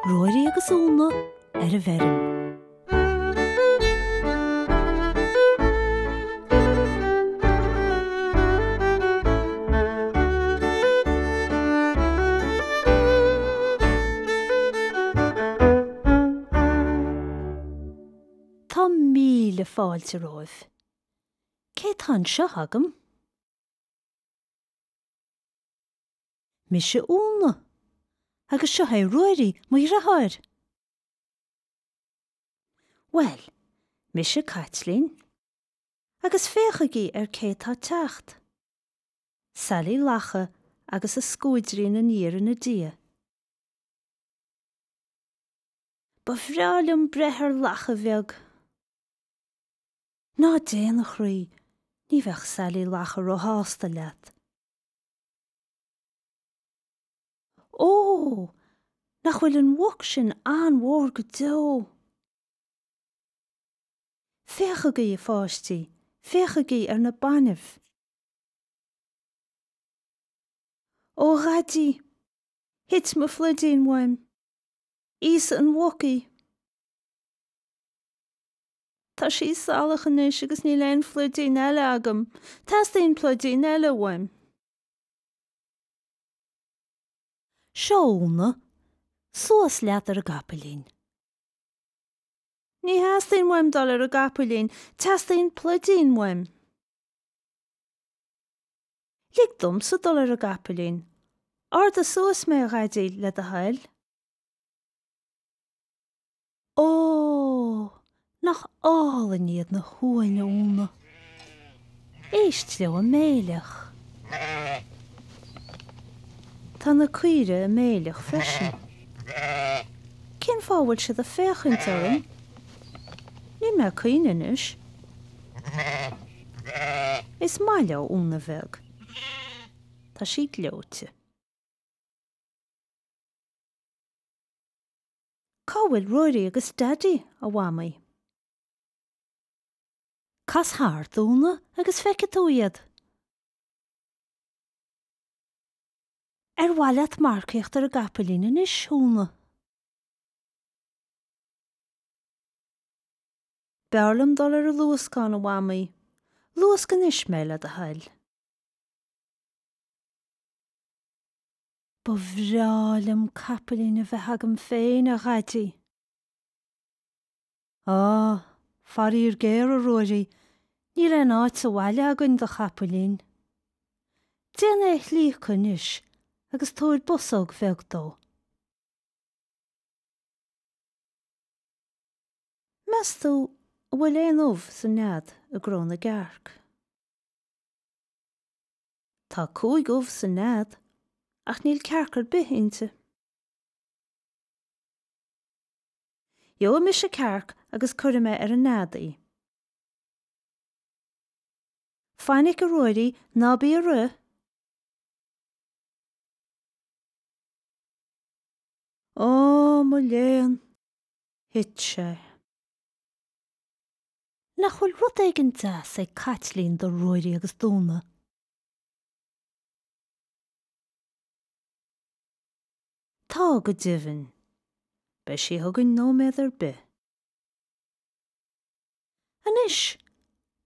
Ruairí agus Úna ar an bhfeirm. Tá míle fáilte romhaibh. Cé tá anseo agam? Mise Úna. Agus seo é Ruairí, mo dhriotháir. Bhuel, mise Caitlín. Agus féachaigí ar cé tá ag teacht. Sailí Lacha agus a scuaidrín aniar ina diaidh. Ba bhreá liom breith ar lacha bheag. Ná déan, a chroí, ní bheadh Sailí Lacha róshásta leat. Ó! Nach bhfuil an mhuc sin an-mhór go deo! Féachaigí, a pháistí, féachaigí ar na bainbh! Ó, a Dhaidí! Thit mo phluidín uaim! Íosfaidh an mhuc í! Tá sí salach anois agus níl aon phluidín eile agam. Teastaíonn pluidín eile uaim. Seo Úna, suas leat ar an gcapaillín. Ní theastaíonn uaim dul ar an gcapaillín, teastaíonn pluidín uaim. Lig domsa dul ar an gcapaillín. Ardaigh suas mé, a Dhaidí, le do thoil. Ó! Nach álainn iad na huain, a Úna! Éist leo ag méileach. Tá na caoirigh ag méileach freisin. Cén fáth a bhfuil siad ag féachaint orm? Níl mé ag caoineadh anois. Is maith leo Úna bheag. Tá sí gleoite. Cá bhfuil Ruairí agus Daidí, a Mhamaí? Cas thart, a Úna, agus feicfidh tú iad. Ar mhaith leat marcaíocht ar an gcapaillín anois, a Úna? B'fhearr liom dul ar an luascán, a Mhamaí. Luasc anois mé, le do thoil. Ba bhreá liom capaillín a bheith agam féin, a Dhaidí. Á, faraor géar, a Ruairí, níl aon áit sa bhaile againn do chapaillín. Déan é a shlíocadh anois agus tabhair bosóg bheag dó. Meas tú an bhfuil aon ubh sa nead i gcró na gcearc? Tá 5 ubh sa nead, ach níl cearc ar bith inti. Gheobhaidh mise cearc agus cuirfidh mé ar an nead í. Fainic, a Ruairí, ná bí ag rith! Ó, mo léan, thit sé. Nach bhfuil rud éigin deas ag Caitlín do Ruairí agus d'Úna? Tá, go deimhin. Beidh sí chugainn nóiméad ar bith. Anois,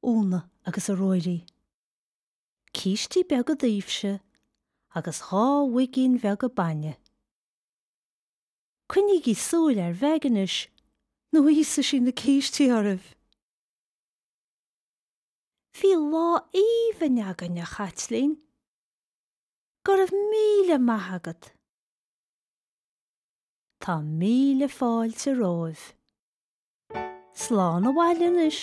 Úna agus a Ruairí. Cístí beaga daoibhse agus 2 mhuigín bheaga bainne. Coinnígí súil ar Mheig anois nó íosfaidh sí na cístí oraibh! Bhí lá aoibhinn againn, a Chaitlín. Go raibh míle maith agat. Tá míle fáilte romhaibh. Slán abhaile anois.